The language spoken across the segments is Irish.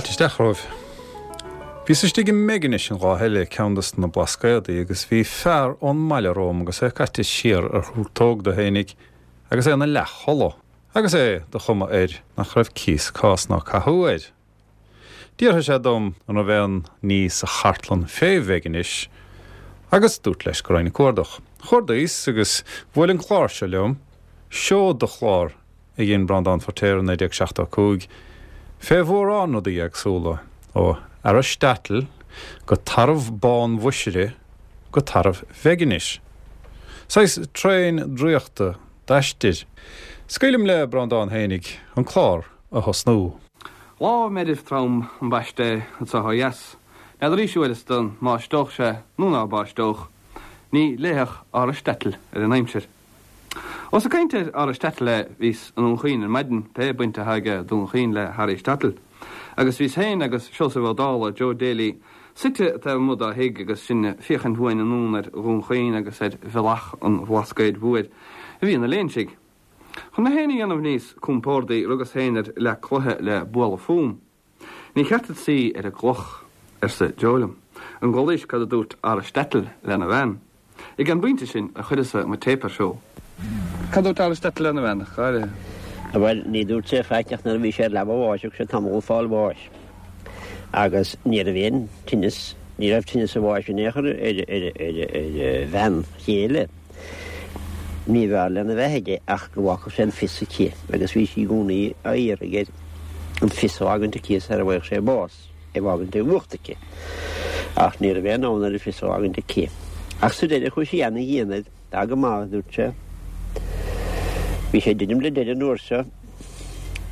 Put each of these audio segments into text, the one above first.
Fáilte isteach romhaibh. Bhíos istigh i mBeiginis an lá eile, ceann dos na Blascaodaí, agus bhí fear ón mbaile romham agus é caite siar ar thúrtóg dó fhéinig agus é ina leathchodladh, agus é de chuma air nach raibh cíos cás ná cathú air. D'fhiafraigh sé dom an raibh aon ní sa chartlann fé Bheiginis agus dúrt leis go raghainn ag cuardach. Chuardaíos agus bhuail an clár seo liom, seod de chlár a dhein Breandán Feiritéar i 1975, fé mhórán rudaí éagsúla, ó Araisteatal go Tarbh Bán Mhuisire go Tarbh Bheiginis. Saghas traein draíochta d'aistir. Scaoilim le Breandán fhéinig an clár a thosnú. Lá meirbh trom ambaiste é anso ó dheas. N'fheadar arís uaireasta an mbáisteodh sé nó ná báisteodh. Ní léifeadh Araisteatal ar an aimsir. Ós ag caint ar Araisteatal é, bhíos i nDún Chaoin ar maidin, pé baint atá aige Dún Chaoin le hAraisteatal, agus bhíos féin agus Seosamh Ó Dálaigh, Joe Daly, suite taobh amuigh dá thigh agus sinn ag féachaint uainn anonn ar Dhún Chaoin agus ar bhealach an Bhlascaoid Mhóir a bhí ina léinsigh. Chun mé féin a dhéanamh níos compórdaí, rugas féin ar leac cloiche le bualadh fúm. Ní cheart duit suí ar an gcloch, arsa Joe liom. An gcualaís cad a dúirt Araisteatal lena bhean? Ag an bpointe sin a chuireas-sa mo téip ar siúl. Cad a dúirt Araisteatal lena bhean, ach go háirithe? Bhuel, ní dúirt sé faic ach nuair a bhí sé ar leaba a bháis, thug sé tamall ag fáil bháis. Agus ní raibh aon tinneas, ní raibh tinneas a bháis in aon chor ar a bhean chéile. Ní b'fhearr lena bheith aige ach go bhfágfadh sé an fios aici agus bhí sí i gcónaí á iarraidh air an fios a fhágaint aici sara bhfaigheadh sé bás, é a fhágaint i bhfuacht aici. Ach ní raibh aon fhonn air an fios a fhágaint aici. Ach sa deireadh chuaigh sí ana-dhian air. Tá go maith, a dúirt sé. Bhí sé ag druidim le deireadh an uair seo.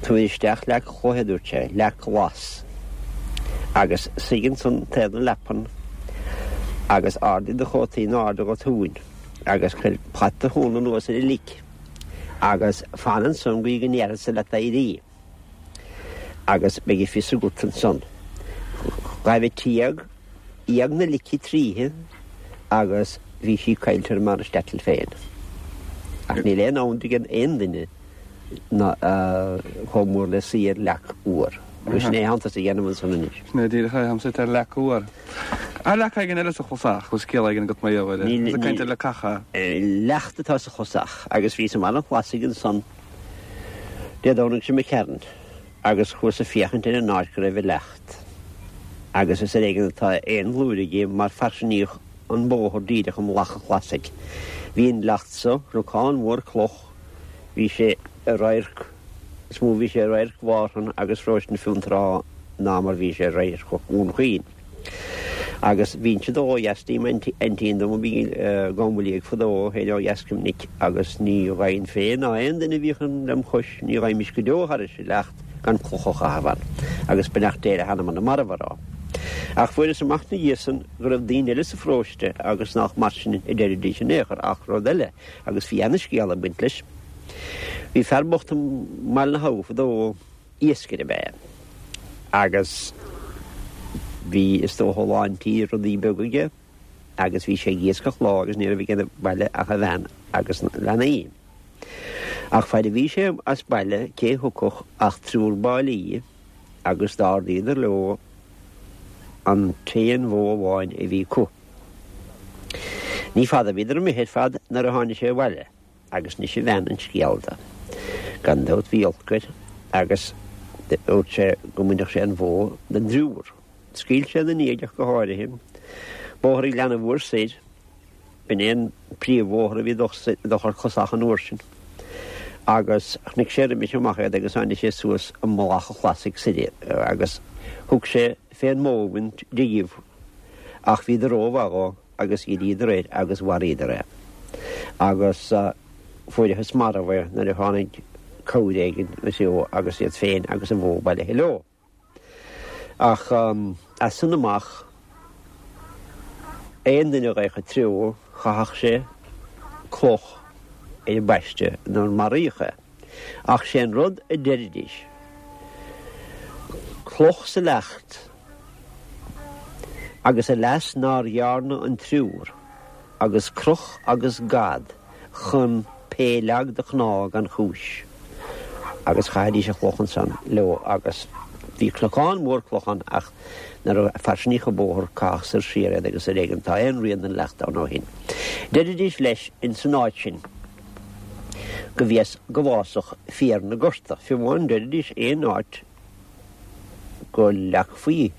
Tabhair isteach leac chloiche, a dúirt sé, leac ghlas, agus suigh ansan taobh na leapan agus ardaigh do chóta in airde go tóin agus cuir plait do thóna anuas ar an lic agus fan ansan go dtí go ndéarfadsa leat éirí agus beidh a fios agat ansan. Ghaibh an t-éag, éag na lice tríthi agus bhí sí caillte ar m'Araisteatal féin. Ach níl aon fhonn ag aon duine ná chomh mór le suí ar leac fhuar. Agus sin é atánn tusa a dhéanamh ansan anois. Sin é díreach é, táim suite ar leac fhuar. Tá leac éigin eile sa chlosach, bhfuil scéal éigin agat mar gheall air? Níl. Ag caint ar leacacha. Leacht atá sa chlosach agus bhíos i mBaile an Chlasaigh ansan Dé Domhnaigh seo imigh tharainn agus chuas ag féachaint ar an áit go raibh an leacht agus is ar éigean atá aon bhlúire di mar fairsingíodh an bóthar díreach i mullach an Chlasaigh. Bhí an leacht so, cnocán mhór cloch, Bhí sé i radharc, is mó bhí sé i radharc Mhárthain agus Pharóiste na Fionntrá ná mar bhí sé i radharc Dhún Chaoin. Agus bhínnse ag dul ó dheas dtí m'aintín dom a bhí i gCom Liag fadó féin ó dheas go minic agus ní ghabhainn féin ná aon duine a bhíodh lem chois, ní ghabhaimis go deo thairis an leacht gan cloch a chaitheamh ann. Agus beannacht Dé le hanam na marbh a rá. Ach fuaireas amach 'na dhiaidh san go raibh daoine eile sa pharóiste agus nách mar sin a deiridís in aon chor ach rud eile, Agus bhí ana-scéal ag baint leis. Bhí fear bocht i mBaile na hAbha fadó, iascaire ab ea é, agus bhí is dócha a lán tí rudaí beaga aige agus bhí sé ag iascach lá agus ní raibh aige sa bhaile ach a bhean agus na leanaí. Ach faid a bhí sé as baile cé thiocfadh ach triúr báillí agus d'ardaíodar leo an t-aon bhó amháin a bhí acu. Ní fada a bhíodar imithe ar fad nuair a tháinig sé abhaile agus d'inis a bhean an scéal do. Gan dabht bhí olc air agus dúirt sé go mbainfeadh sé an bhó den dtriúr. Scaoil sé ina ndiaidh ach go háirithe. Bóthar an Ghleanna Mhóir soir, b'in é an príomhbhóthar a bhí ag dul thar Closach an uair sin, agus chonaic sé roimis amach iad agus tháinig sé suas i mullach an Chlasaigh soir agus thug sé fén mbó a bhaint díobh. Ach bhíodar rómhaith dhó agus dhíríodar air agus mharaíodar é. Agus fuaireathas marbh é nuair a tháinig cabhair éigin agus iad féin agus an bhó bailithe leo. Ach as san amach, aon duine a gheibheadh an treo, chaithfeadh sé cloch ar an bpaiste nuair maraíodh é. Ach sé an rud a deiridís, cloch sa leacht agus a leas nár dhearna an triúr, agus croch agus gad chun pé leag do chnámh gan chúis. Agus chaithidís an chloch ansan leo agus. Bhí cnocán mór cloch ann ach nuair a fairsinníodh an bóthar caitheadh soir siar iad agus ar éigean atá aon rian den leacht ann ó shin. Deiridís leis ins an áit sin go bhfios go bhfásfadh féar na gorta. Fiú amháin deiridís aon áit go leagfaí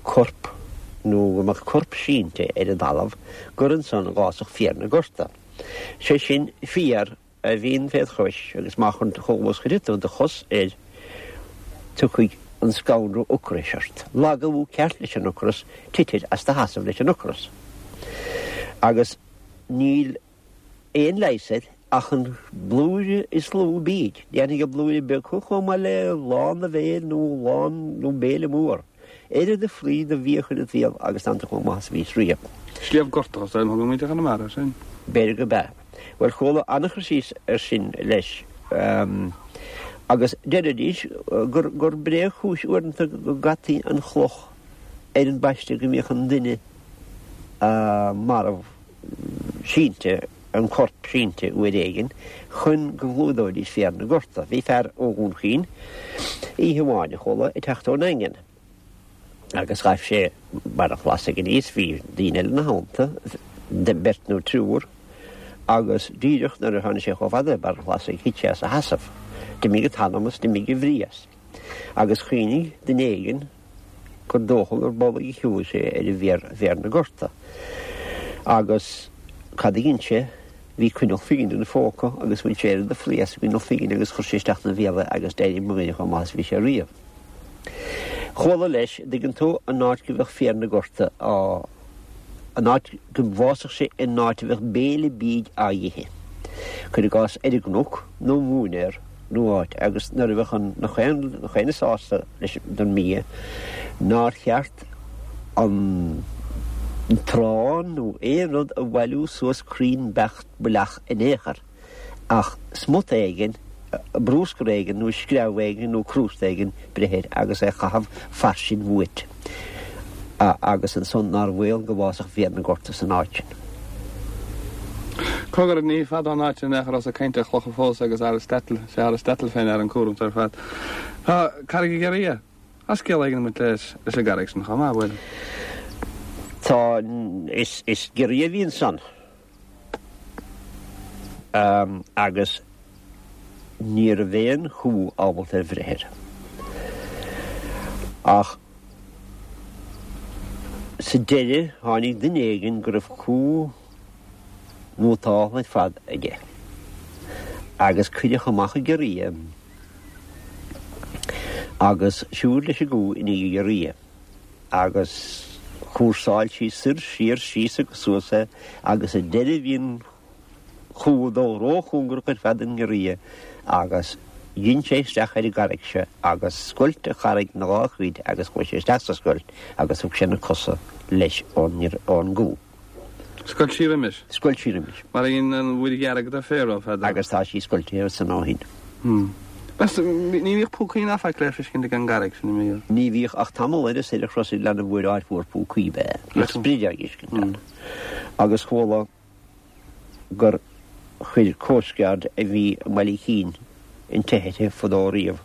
corp nó go mbeadh corp sínte ar an dtalamh gur ansan a dh'fhásfadh féar na gorta. Sé sin féar a bhíonn féd chois agus má chomh luath is chuirfidh tú do chos air tiocfaidh an scanradh ocrais ort. Lagú ceart leis an ocras, titfir as do sheasamh leis an ocras. Agus níl aon leigheas air ach an blúire is lú bídh. Déanfaidh an blúire beag thú chomh maith le lán do bhéil nó lán nó béile mór. Oiread de phlí de bhia a chur id bhéal agus tánn tú chomh maith is a bhís riamh. Sliabh Gortach is ainm a thugann muintir Chonamara air sin. B'fhéidir gurb ea. Bhuel, chuala an-chur síos air sin leis. Agus deiridís gur gur bréagchúis uaireanta go gcaití an chloch ar an bpaiste go mbíodh an duine marbh sínte, an corp sínte uair éigin chun go gclúdóidís féar na gorta. Bhí fear ó Dhún Chaoin oíche amháin, a chuala, ag teacht ón nDaingean agus ghaibh sé Barr an Chlasaigh aníos, bhí daoine eile ina theannta, beirt nó triúr, agus díreach nuair a tháinig sé chomh fada le Barr an Chlasaigh thit sé as a sheasamh. D'imigh an t-anam as, d'imigh a bhrí as. Agus chuimhnigh duine éigin gur dócha gur b'amhlaidh a shiúil sé ar an bhféar, féar na gorta. Agus cad a dhein sé? Bhí coinneal phingine ina phóca agus bhain sé oiread de phlaí as an gcoinneal phingine agus chuir sé isteach ina bhéal é agus d'éirigh mo dhuine chomh maith is a bhí sé riamh. Chuala leis, an dtuigeann tú, an áit go bheadh féar na gorta á. an áit go bhfásfadh sé in áit a bheadh béile bídh á ithe. Cuir i gcás ar an gcnoc nó móinéar nó áit agus nuair a bheadh an nach aon duine sásta leis an mbia nár cheart an t-arán nó aon rud a bhailiú suas cruinn beacht baileach in aon chor. ach smut éigin, brúscar éigin nó screamh éigin nó crústa éigin breith air agus é a chaitheamh fairsing uait agus ansan nár bhaol go bhfásfadh féar na gorta san áit sin. Cogar, ní fada ón áit sin in aon chor ós ag caint ar chlocha fós agus Aristotle, sé Aristotle fé ndear an cúram seo ar fad. Tá Carraig an Ghiorria. Tá scéal éigin ag baint leis an gcarraig sin chomh maith, bhfuil? Tá, is giorria a bhí ansan. Agus ní raibh aon chú ábalta ar bhreith air. Ach sa deireadh tháinig duine éigin go raibh cú nótáltha ar fad aige agus cuireadh amach an giorria agus siúd leis an gcú i ndiaidh an ghiorria. agus chúrsáil sí soir, siar, síos agus suas é agus ar deireadh bhí an chú ag dul róchóngarach ar fad don ngiorria agus dhein sé isteach ar an gcarraig seo agus scoilt an charraig ina dhá chuid agus chuaigh sé isteach sa scoilt agus thug sé na cosa leis ón gcú. Scoilt sí roimis. Scoilt sí roimis. Mar a dhein an Mhuir Dhearg do Pharaoh fadó. Agus tá sí scoiltithe ansan ó shin. Meas tú, ní bhíodh púcaí ná faic le feiscint ag an gcarraig sin, an mbíodh? Ní bhíodh ach tamall ar soir ar chros Ghleann an Mhúir áit mhór púcaí ab ea. Bhíodh sprid á dh'fheiscint ann. Agus chuala gur chuir coast guard a bhí i mBaile Chinn an teitheadh uirthi fadó riamh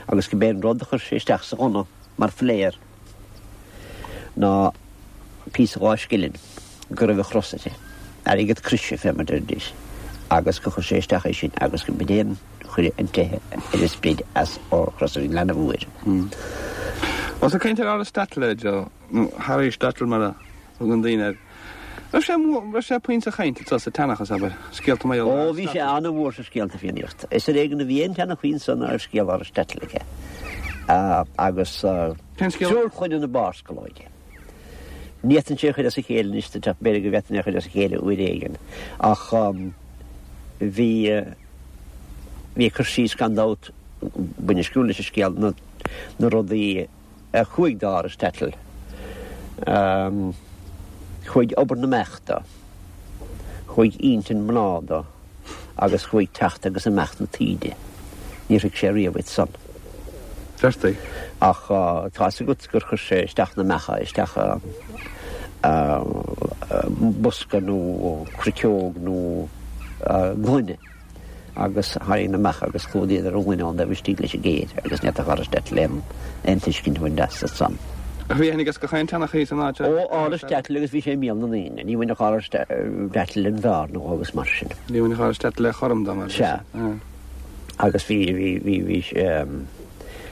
agus go b'é an rud a chuir sé isteach sa ghunna mar phléar ná píosa dhá scilling go raibh an chros uirthi, airgead croise fé mar deiridís, agus gur chuir sé isteach é sin agus go b'in é an chuir an teitheadh ar an sprid as ó Chros an Ghleanna Mhóir. Ós ag caint ar Aristotle, Joe, nó Harry Stottle mar a thugann daoine air. Raibh sé mór, raibh sé puinn sa chaint anso sa tseanchas, abair, scéalta mar gheall ar Ó, bhí sé ana-mhór sa scéalta Fiannaíochta. Is ar éigean a bhí aon tseanchaí anso ná raibh scéal Aristotle aige. Agus Cén scéal? Triúr Clainne na Barrscolóige. Ní fhéadfainnse é a chur as a chéile anois duit ach b'fhéidir go bhféadfainn é a chur as a chéile uair éigin. Ach bhí, bhí cur síos gan dabht bainistiúil leis an scéal, na, na rudaí, a chuaigh d'Aristotle. Chuaigh obair na mbeach dó, chuaigh intinn mná dó agus chuaigh teacht agus imeacht na taoide. Níor thuig sé riamh iad san. Deirtí. Ach tá's agat gur chuir sé isteach na mbeacha isteach i mbosca nó cruiceog nó gloine. agus tharraing amach agus chlúdaíodar an gloine ón dtaobh istigh leis an gcéir agus ní fhéadfadh Aristotle aon aon tuiscint a bhaint as ansan. Ach bhí aithne aige gach aon tseanchaí san áit Ó, Aristotle agus bhí sé i mbéal na ndaoine. Ní bhainfeadh Aristotle an bhearna dhó agus mar sin. Ní bhainfeadh Aristotle le chorm dá mar. Sea. Agus bhí, bhí, bhí, bhí,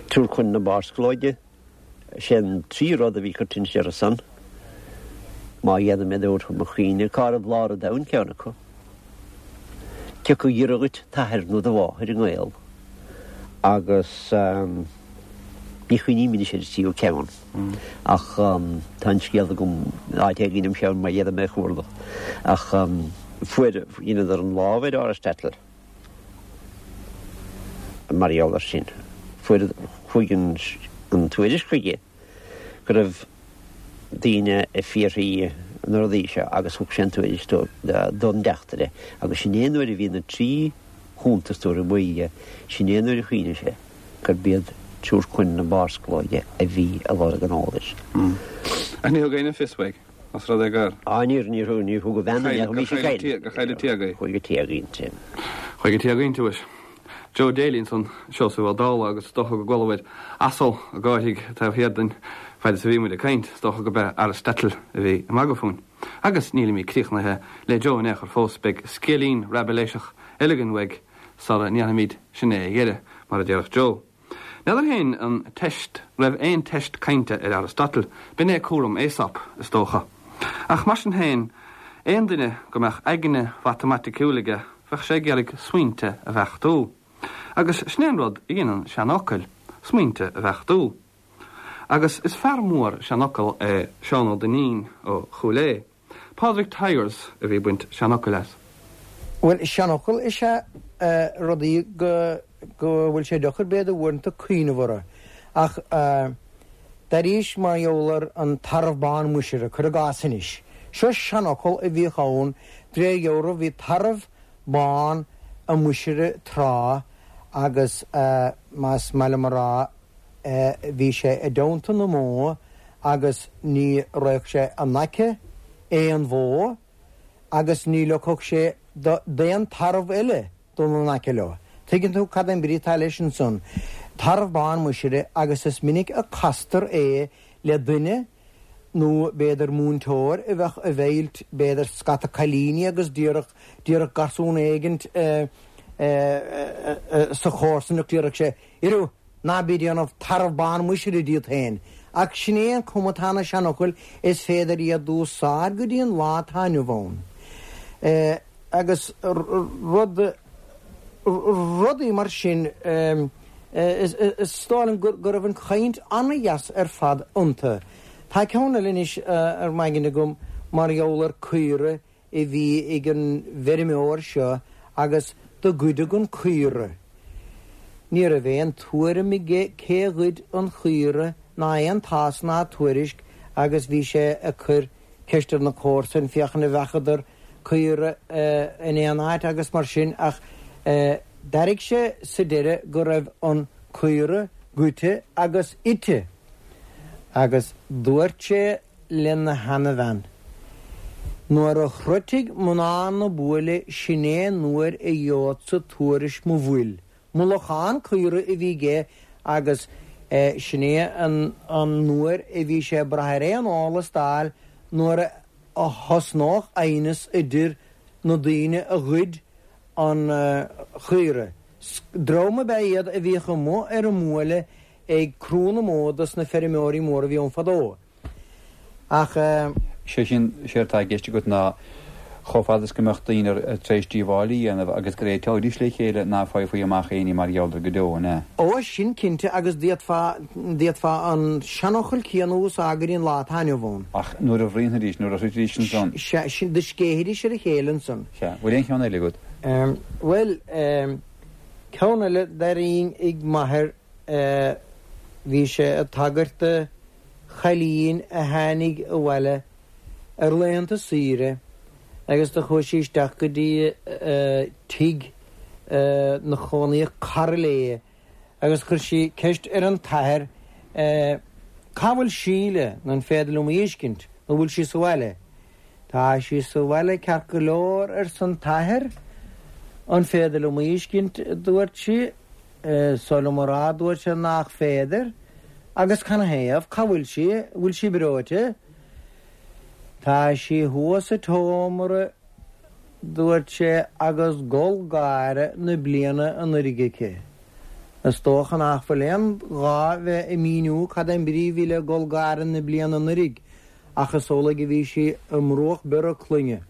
triúr coin na barrsclóide. Sé an trí rud a bhí coitianta orthu san, má dhéanaim iad a thabhairt chun mo chuimhne, cá raibh lár an domhain ceann acu. Cé acu a ghiorra dhuit t'athair nó do mháthair i ngaol agus ní chuimhním anois ar an tríú ceann ach tá an scéal agam áit éigin im cheann má dhéanaim é a chuardach ach fuair, dheineadar an lámh ar Aristotle. Mar gheall air sin, fuair, chuaigh an tuairisc chuige go raibh daoine ag fiafraí na rudaí seo agus thug sé an tuairisc don dteachtaire agus sin é an uair a bhí na trí chuntas tabhartha uaidh, sin é an uair a chuimhnigh sé gurb iad triúr coin na barrsclóige a bhí ag lorg an eolais. Ach ní thug éinne fios uaidh. Os rud é gur. Á, níor, níor thug, níor thug a bhean an bhí sí caillte. Gur chailleadh Tiago í. Chuaigh go Tiago inti. Chuaigh go Tiago inti, mhuis. Joe Daly ansan, Seosamh Ó Dálaigh agus is dócha go gcualabhair asal ag gáiridh taobh thiar dínn fad is a bhí muid ag caint, is dócha gurb é Aristotle a bhí ag magadh fúinn. Agus nílimid críochnaithe le Joe in aon chor fós, beidh scéilín raibiléiseach eile againn uaidh sara ndéanfaimid sin é a dheireadh, mar a déarfadh Joe. N'fheadar féin an teist raibh aon teist cainte ar Aristotle, b'in é cúram Aesop, is dócha. Ach mar sin féin, aon duine go mbeadh aigne mhatamaiticiúil aige, bheadh sé ag iarraidh smaointe a bheachtú. Agus sin é an rud a dhéanann seanfhocail, smaointe a bheachtú. Agus is fear mór seanfhocal é Seán Ó Duinnín ó Chúil Aodha. Pádraig Tyers a bhí ag baint seanfhocail as. Bhuel, seanfhocal is ea rudaí go go bhfuil sé deacair b'fhéidir uaireanta cuimhneamh orthu. Ach d'airíos mar gheall ar an tarbh bán muisire, cuir i gcás anois. Seo seanfhocal a bhíodh ann, de réir dealraimh bhí tarbh bán i Muisire tráth agus más maith liom a rá, bhí sé i dteannta na mbó agus ní raghadh sé in aice aon bhó agus ní leogfadh sé d'aon tarbh eile dul in aice leo. Tuigeann tú cad é an brí atá leis ansan. Tarbh bán muisire agus is minic a castar é le duine nó b'fhéidir múinteoir a bheadh ag meilt b'fhéidir scata cailíní agus déarfadh déarfadh garsún éigint sa chomharsanacht déarfadh sé Arú, ná bí ag déanamh tarbh bán muisire díot féin. Ach sin é an cuma atá ar na seanfhocail, is féidir iad d'úsáid go dtí an lá atá inniu ann. Agus rud, rudaí mar sin, is dóigh liom go raibh an chaint an-dheas ar fad iontu. Tá ceann eile anois ar m'aigne agam mar gheall ar caora a bhí ag an bhfeirmeoir seo agus do goideadh an caora. Ní raibh aon tuairim aige cé ghoid an chaora ná aon tásc ná tuairisc agus bhí sé ag cur ceist ar na comharsain féachaint an bhfeacadar caora in aon áit agus mar sin ach d'airigh sé sa deireadh go raibh an caora goidte agus ite agus dúirt sé lena sheanabhean. Nuair a shroichfidh mná na buaile sin é an uair a gheobhadsa tuairisc mo bhfuil. Mullachán caora a bhí aige agus sin é an uair a bhí sé ag brath ar aon eolas d'fháil nuair a thosnódh aighneas idir na daoine a ghoid an chaora. Dream ab ea iad a bhíodh amuigh ar an mbuaile ag crú na mbó dos na feirmeoirí móra a bhí ann fadó. Ach. Sé sin, séard atá i gceist agat ná chomh fada is go mbeadh daoine tar éis díobháil a dhéanamh agus go réiteoidís le chéile ná faighfí amach éinní mar gheall air go deo, an ea? Ó, sin cinnte, agus d'fhéadfá, d'fhéadfá an seanfhocal céanna a úsáid go dtí an lá atá inniu ann. Ach nuair a bhruíonfaidís, nuair a shroichfidís ansan. Sea, sin, do scéithfidís ar a chéile ansan. Sea. Bhfuil aon cheann eile agat? Bhuel, ceann eile d'airínn ag m'athair, bhí sé ag tagairt do chailín a tháinig abhaile ar laethanta saoire agus do chuaigh sí isteach go dtí tigh 'na chónaíodh cara léi agus chuir sí ceist ar an t-athair Cá bhfuil Síle nó an féidir liom í fheiscint nó bhfuil sí sa bhaile? Tá sí sa bhaile ceart go leor arsa an t-athair. An féidir liom a fheiscint, a dúirt sí. Is oth liom a rá, a dúirt sé, nach féidir. Agus canathaobh? Cá bhfuil sí? Bhfuil sí breoite? Tá sí thuas sa tseomra, dúirt sé, agus gol gáire na bliana anuiridh aici. Is dócha nach bhfuil aon ghá bheith ag míniú cad é an brí a bhí le gol gáire na bliana anuiridh, ach is amhlaidh a bhí sí i mbruach bior a cloigne.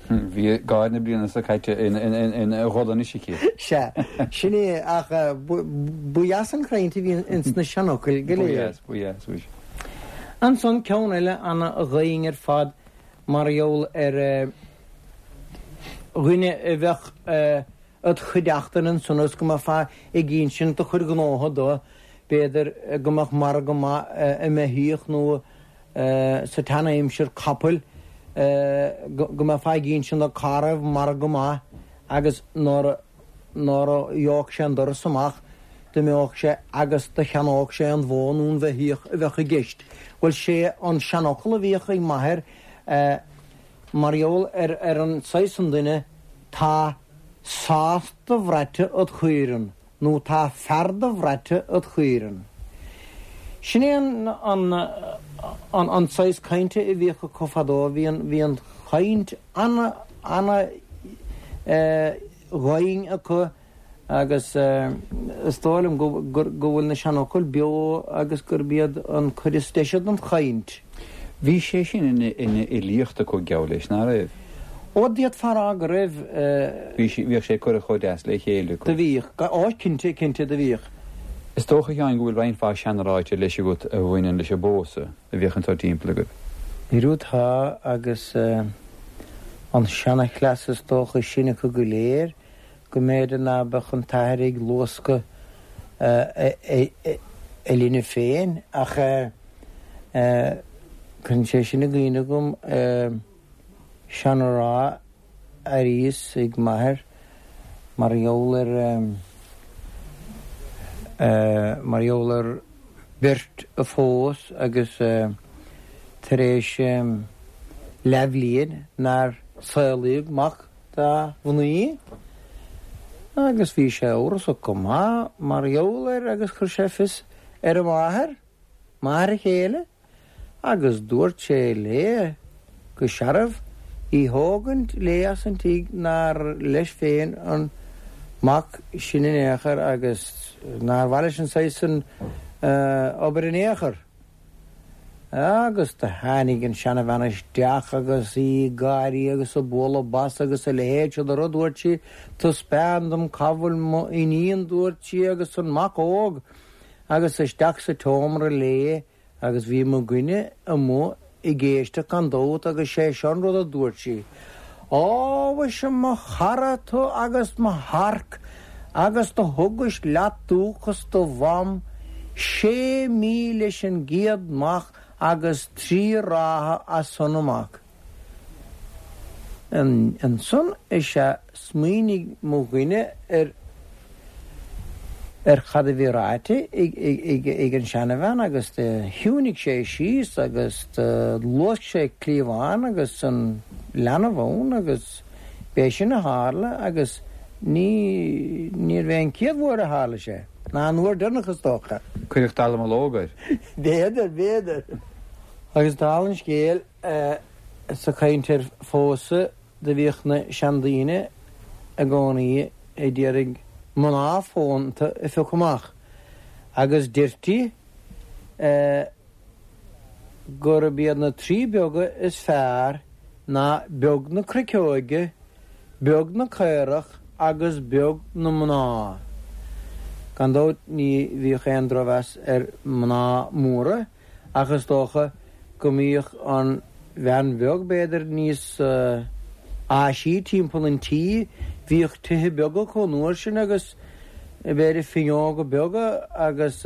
Bhí gáire na bliana seo caite ina gol anois aici. Sea, sin é, ach ba dheas an chaint a bhí ins na seanfhocail go léir. Ba dheas, ba dheas, muise. Ansan ceann eile ana-dhoimhin ar fad mar gheall ar dhuine a bheadh id chuideachtain ansan agus go mbeifeá ag insint do chuid gnótha dó, b'fhéidir go mbeadh margadh maith i mbeithíoch nó sa tsean-aimsir capaill, go mbeifeá ag insint dó cá raibh margadh maith agus nuair a gheobhadh sé an doras amach d'imeodh sé agus do cheannódh sé an bhó nó an bheithíoch a bheadh i gceist. Bhuel, sé an seanfhocal a bhíodh ag m'athair mar gheall ar an saghas san duine, Tá sás do-bhraite id chaoireann nó tá fear do-bhraite id chaoireann. Sin é an saghas cainte a bhíodh acu fadó, bhí an, bhí an chaint ana, ana dhoimhin acu Agus is dóigh liom go bhfuil na seanfhocail beo agus gurb iad an cuid is deise den chaint. Bhí sé sin ina fhilíocht acu, geall leis, ná raibh? Ó, d'fhéadfá a rá go raibh. Bhí sé, bhíodh sé curtha chomh deas le chéile acu. Do bhíodh. Ó, cinnte, cinnte, do bhíodh. Is dócha, a Sheáin, go bhfuil roinnt mhaith seanráite leis agat a bhaineann leis an bpósadh a bhíodh anseo timpeall agaibh. Arú tá, agus an seanchleas is dócha is sine acu go léir, go mb'fhéidir ná beadh an t-athair ag luascadh a linbh féin, ach cuireann sé sin i gcuimhne dhom seanrá a airíos ag m'athair mar gheall ar mar gheall ar bheirt a phós agus tar éis leathbhliain nár saolaíodh mac dá mhnaoi agus bhí sé amhrasach go maith mar gheall air agus chuir sé fios ar a mháthair, máthair a chéile, agus dúirt sé léi go searbh í thógaint léi as an tigh nár leis féin an mac sin in aon chor agus nár mhaith leis an saghas san obair in aon chor. Agus do tháinig an seanabhean isteach agus í ag gáirí agus ag bualadh bos agus a leithéid seo de rud, dúirt sí, Taispeáin dom cá bhfuil mo iníon, dúirt sí, agus an mac óg, agus isteach sa tseomra léi agus bhí mo dhuine amuigh ag éisteacht gan dabht agus sé seo an rud a dúirt sí, Á, mhuise, mo chara tú agus mo shearc agus do thugais leat dúchas do mham sé mí leis an gcéad mhac agus trí ráithe as san amach. Ansan is ea smaoinigh mo dhuine ar ar cad a bhí ráite ag an seanabhean agus do chiúinigh sé síos agus do luasc sé cliabhán agus an leanbh ann agus b'é sin a tharla agus ní, níorbh é an chéad uair a tharla sé, ná an uair deireanach is dócha. Cuireadh dallamullóg air. B'fhéidir, b'fhéidir. Agus dála an scéil, sa chaint ar phósadh, do bhíodh na seandaoine i gcónaí ag iarraidh mná fónta a phiocadh amach agus deirtí gurb iad na trí beaga is fearr ná beag na cruiceoige, beag na caorach agus beag na mná. Gan dabht ní bhíodh aon drochmheas ar mná móra ach is dócha go mbíodh an bhean bheag, b'fhéidir, níos áisí timpeall an tí, bhíodh tithe beaga acu an uair sin agus b'fhéidir fuinneoga beaga agus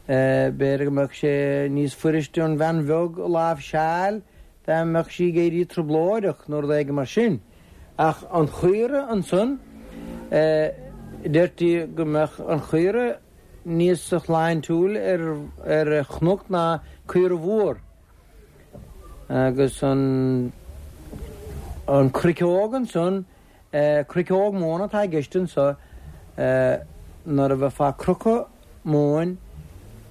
b'fhéidir go mbeadh sé níos fuiriste an bhean bheag a láimhseáil dá mbeadh sí ag éirí trioblóideach nó rud éigin mar sin. Ach an chaora ansan, deirtí go mbeadh an chaora níos shláintiúil ar chnoc ná caora mhór. Agus an an chruiceog ansan. Cruiceog móna atá i gceist anso, nuair a bheifeá ag crochadh móin,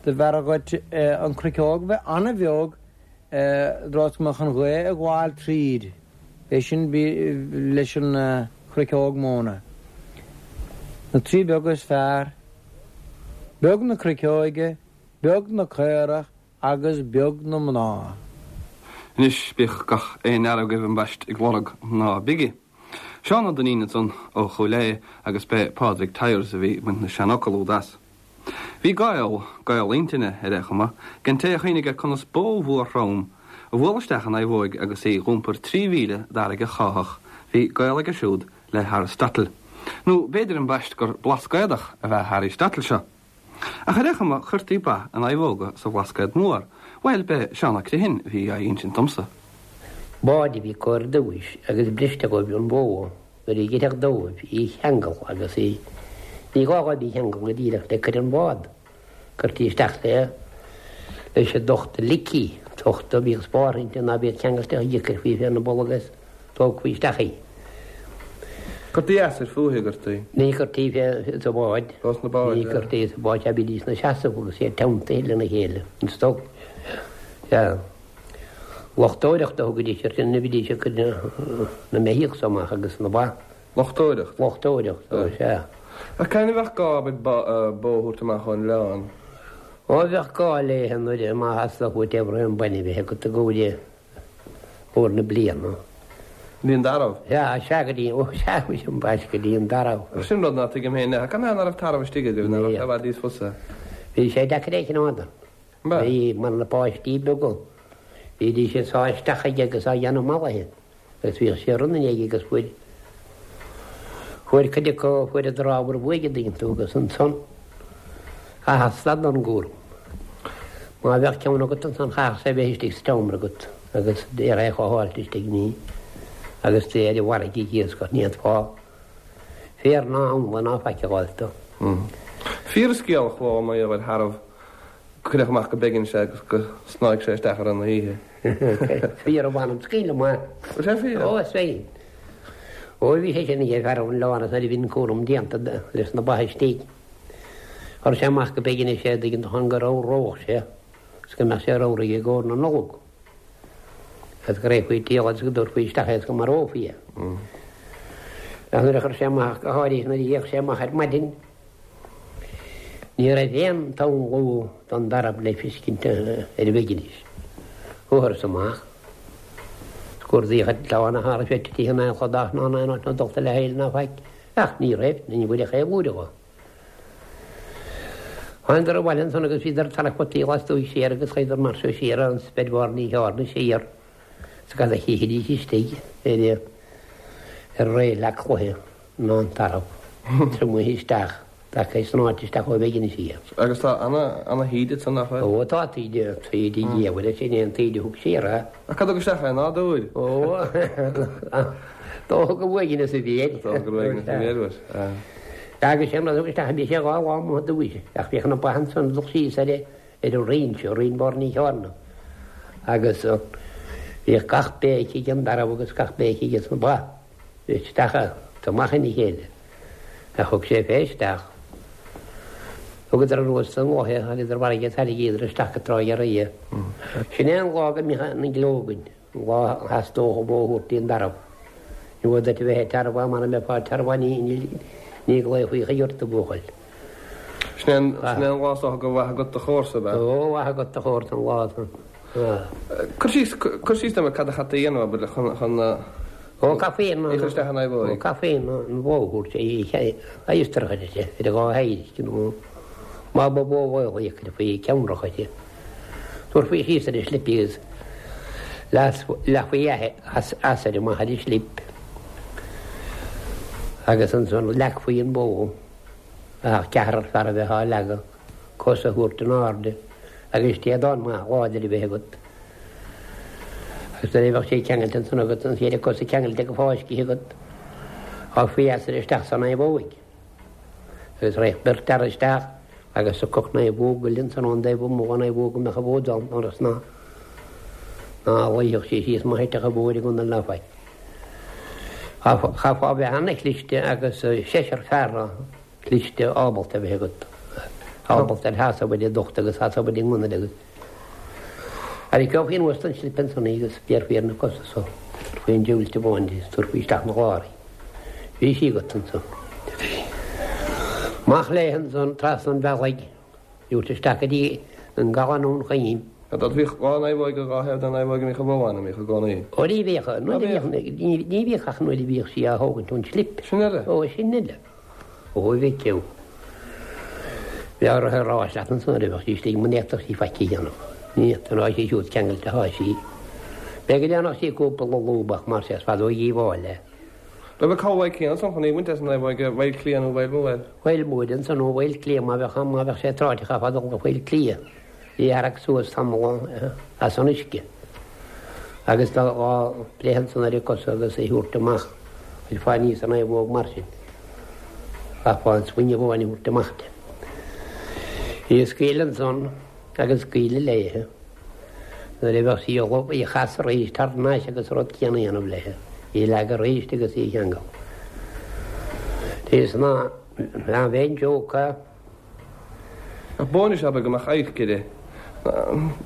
do b'fhearra dhuit an chruiceog bheith an-bheag i dtreo is go mbeadh an ghaoth ag gabháil tríd. É sin leis an chruiceog móna. Na trí beaga is fearr, beag na cruiceoige, beag na caorach agus beag na mná. Anois bíodh gach aon fhear agaibh ambaist ag lorg mná bige. Seán Ó Duinnín ansan ó Chúil Aodha agus b'é Pádraig Tyers a bhí ag baint na seanfhocal úd as. Bhí gaol, gaol intinne ar aon chuma, ag an té a chuimhnigh ar conas bó mhór throm a bhualadh isteach in naomhóig agus í dh'iompar 3,000 d'fharraige cháitheach, bhí gaol aige siúd le hAristotle. Nó b'fhéidir ambaist gur Blascaodach ab ea Aristotle seo. Ach ar aon chuma chuirtí ba i naomhóga sa Bhlascaod Mór, bhuel b'é Seán Ó Criomhthain a bhí á insint domsa. Bád a bhí acu ar dtúis agus briste dhóibh an bhó nuair a dh'oirfeadh dóibh í cheangal agus í, ní gá dhóibh í cheangal go díreach le coir an bhád, cuirtí isteach le leis an dtochta licí, tochta a bhíodh spártha inti ná bíodh ceangailte ach chuirfí féna bolg is tógfaí isteach í. Cuirtí easair fúithi, a gcuirtí? Ní chuirtí fé sa bhád. Ó, sna báid, Ní chuirtí sa bhád, sea, bhídís 'na seasamh agus iad teanntaithe lena chéile, an stoc. Sea. Luchtóireacht a thugaidís air sin, bhídís ag cur na mbeithíoch so amach agus na ba. Luchtóireacht? Luchtóireacht, ó, sea. Ach cathain a bheadh gá, abair, bó a thabhairt amach ón oileán? Ó, bheadh gá léithe nuair a, má theastódh uait aon bainne a bheith agat i gcomhair uair na bliana. Go dtí an tarbh? Sea, sea, go dtí, ó, sea, muise ambaist, go dtí an tarbh. Ach sin rud ná tuigim féin, cad ná raibh tarbh istigh agaibh, ná raibh sé i bhfad níos fusa? Bhí sé deacair é a choimeád. Bhí, mar na páistí beaga, bhídís ag sá isteach aige agus á dhéanamh mallaithe agus bhíodh sé run aige agus fuair, fuair cuid acu, fuaireadar ábhar uaidh an dtuigeann tú agus ansan chaithfeá stad ón gcúram. Má bheadh ceann agat ansan chaithfeadh sé bheith istigh sa tseomra agat agus d'fhéadfá é a chothabháilt istigh ní agus tú ar an bhfarraige ag iascach ní fhéadfá féar ná anla ná faic a fháilt dó. Fíor an scéal a chuala mar gheall ar tharbh go cuireadh amach go Beiginis é agus go snáigh sé isteach i rith na hoíche. Fíor a mh'anam scaoileadh maith. Bhfuil sé fíor? Ó is fíor. Ó bhí sé sin ag fear ón oileán is nuair a bhí an cúram déanta leis na ba istigh. Chuir sé amach go Beiginis é an dtuigeann tú chun go ramhródh sé is go mbeadh sé ramhar i gcomhair na Nollag. Agus go raghfaí ag díol agus go dtabharfaí isteach é is go marófaí é. Ach nuair a chuir sé amach, go háirithe nuair a d'fhéach sé amach ar maidin, ní raibh aon tsamhlú don dtarbh le feiscint ar Bheiginis. Chuathas amach. Cuardaíodh an t-oileán ach cha raibh sé titithe in aon chladach ná in aon áit ná dulta le haill ná faic. Ach ní raibh, ní bhfuaireadh aon bhuaidh dhó. Thángadar abhaile ansan agus bhíodar ag tarrac fataí lastuaidh siar agus chuadar mar seo siar an speid Bharr Ní Chearna siar is cad a chífidís istigh ar ar réidh cloiche ná an tarbh triomaithe isteach tagtha snáite isteach ó Bheiginis aige. Agus tá ana, ana thaoide ansan, nach bhfuil? Ó tá taoide, taoide dhiabhail, sin é an taoide a thug siar é. Ach cad a thug isteach é? Nádúr? Ó, dócha gur uaigneas a bhí air. Dócha gur uaigneas a bhí air, bhuel. Agus sin rud a thug isteach, bhí sé 2 lá amuigh i dtús, ach bhíodh na ba ansan ag dul síos ar ar an rinn seo, rinn Bharr Ní Chearna, agus bhíodh gach béic ag an dtarbh agus gach béic aige sna ba, isteach is amach ina chéile. Ach thug sé fé isteach. Thugadar anuas an lá é, tháinigeadar an bhfarraige tharraingíodar isteach go Trá Ghearraí é. Sin é an lá go mbíodh an gleo againn, an lá a theastódh an bhó a thabhairt dtí'n dtarbh. Ní mhór duit a bheith ag tarbhán, mara mbeifeá ag tarbhán ní ghlaofaí chuige ort a bhuachaill. Sin é an lá is dócha gur mhaith agat do chomharsa, ab ea? Ó, mhaith agat do chomharsa an lá san. Cur síos, cur síos dom ar cad a chaithfí a dhéanamh, abair, chun, chun na. Ó, chaithfí an. Í a chur isteach in aghaidh Ó, chaithfí an bhó a thabhairt, a íostarach uirthi, ar a dhá thaobh, nó má ba bhó mhaol í, chuirfí ceannrach uirthi. Tabharfaí síos ar an slip í agus leathfaí easair amach ar an slip agus ansan leagfaí an bhó ach ceathrar fear a bheith á leagadh, cosa a thabhairt in airde agus téadán maith láidir a bheith agat. Agus nuair a bheadh sé ceangailte ansan agat, an chéad cosa ceangailte go fáiscithe agat, sháfaí easair isteach san naomhóig. Agus raghadh beirt fhear isteach agus thiocfadh naomhóg eile ansan ón dtaobh amuigh den naomhóg a mbeadh an bhó ann ionas ná ná luífeadh sí síos má thitfeadh an bhó ar an gconair ná faic. Chaithfeá a bheith ana-chliste agus seisear fear cliste ábalta a bheith agat, ábalta ar sheasamh ar an ducht agus seasamh ar an ngunnail agus tharraiceofaí anuas den slip ansan í agus bhéarfaí ar na cosa so, tabharfaí an diabhailte bóin di is tabharfaí isteach 'na chlár í. Bhí sí agat ansan. Amach léi ansan trasna an bhealaigh. Dúirt isteach go dtí an gCaladh nó an Choim. Bhíodh dhá naomhóig ar dhá thaobh den naomhóig a mbíodh an bhó ann, a mbíodh i gcónaí. Ó ní bhíodh, nuair a bhíodh, ní bhíodh ach nuair a bhíodh sí á thógaint ón slip. Sin eile. Ó, sin eile. Ó, a mhic ó. Bheadh uirthi a rá leat ansan nuair a bheadh sí istigh, muna bhféadfadh sí faic a dhéanamh. Ní fhéadfadh, tá sí siúd ceangailte atá sí. B'fhéidir go ndéanfadh sí cúpla lúbadh mar sé, is fada ó dhíobháil é. Raibh an cabhlaigh céanna ansan chun í a bhaint as an naomhóig i bhFaill Cliath nó i bhFaill Móir? Faill Móir ansan nó Faill Cliath má bheadh má bheadh sé tráite chaithfeá dul go Faill Cliath í a tharrac suas tamall as an uisce agus dá breith ansan ar a cosa agus í thabhairt amach chuirfeá aníos an naomhóg mar sin. Chaithfeá an sloinne amháin a thabhairt amach de. Í a scaoileadh ansan agus scaoileadh léithe. Nuair a bheadh sí ullamh, í a chasadh arís thar n-ais agus an rud céanna a dhéanamh léithe, í a leagadh arís agus í a cheangal. Is ná bheinn jóca. Ach bó anois abair go mbeadh adharc uirthi.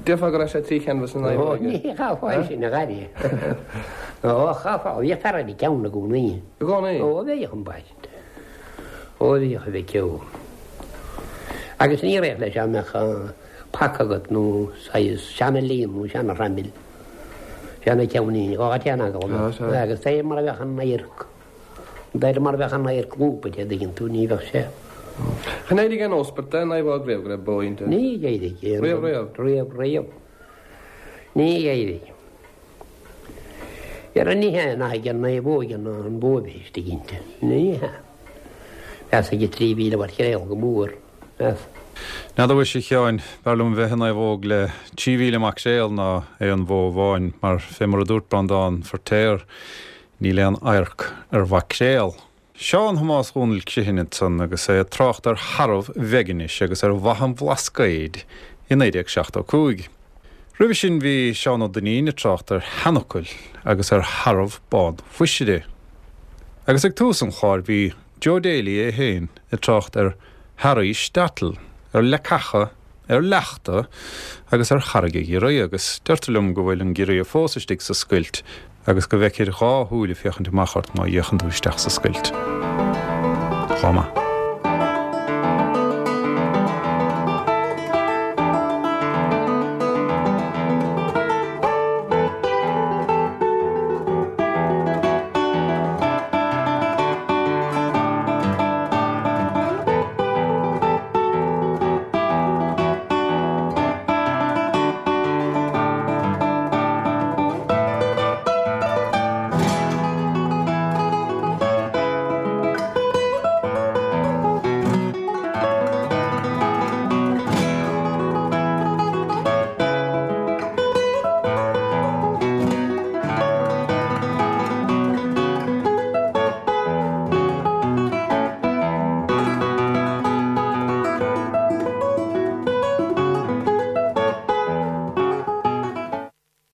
Déarfá go raibh sé tri cheanbhas na naomhóige. Ó, ní chaithfeá é sin a ghaire. Ó, chaithfeá, bhíodh fear ar an gceann i gcónaí. I gcónaí? Ó, bhíodh ambaiste. Ó, bhíodh a mhic ó. Agus ní raibh leis dá mbeadh. paca agat nó saghas seana-líon nó seana-thraimil, seana-cheainnín, dhá téan agallamh agus de réir mar a bheadh an adharc, de réir mar a bheadh an adharc lúbtha an dtuigeann tú, ní bheadh sé. Chan éirigh aon óspairt den naomhóg riamh go raibh bó inti? Ní éirigh. Riamh riamh? Riamh riamh. Ní éirigh. Dhera ní hea nach ag an naomhóig ná an bhó a bheith istigh inti. Ní hea. Mheas ag 3,000 mhaicréal go mór. Meas. N'fheadar mhuise a Sheáin, b'fhearr liom bheith i naomhóg le 3,000 maicréal ná aon bhó amháin, mar fé mar a dúirt Breandán Feirtéar, níl aon adharc ar mhaicréal. Seán Thomáis Dhónaill Criomhthain ansan agus é ag trácht ar tharbh Bheiginis agus ar mhaith an Bhlascaoid i 1975. Roimhe sin bhí Seán Ó Duinnín ag trácht ar sheanfhocail agus ar tharbh bán Mhuisire. Agus ag tús an chláir bhí Joe Daly é féin ag trácht ar Harry Shtetl, ar leacacha, ar leachta agus ar Charraig a' Ghiorria agus deirtear liom go bhfuil an giorria fós istigh sa scoilt agus go bhfeicthir dhá shúil ag féachaint amach ort má fhéachann tú isteach sa scoilt. Lá maith.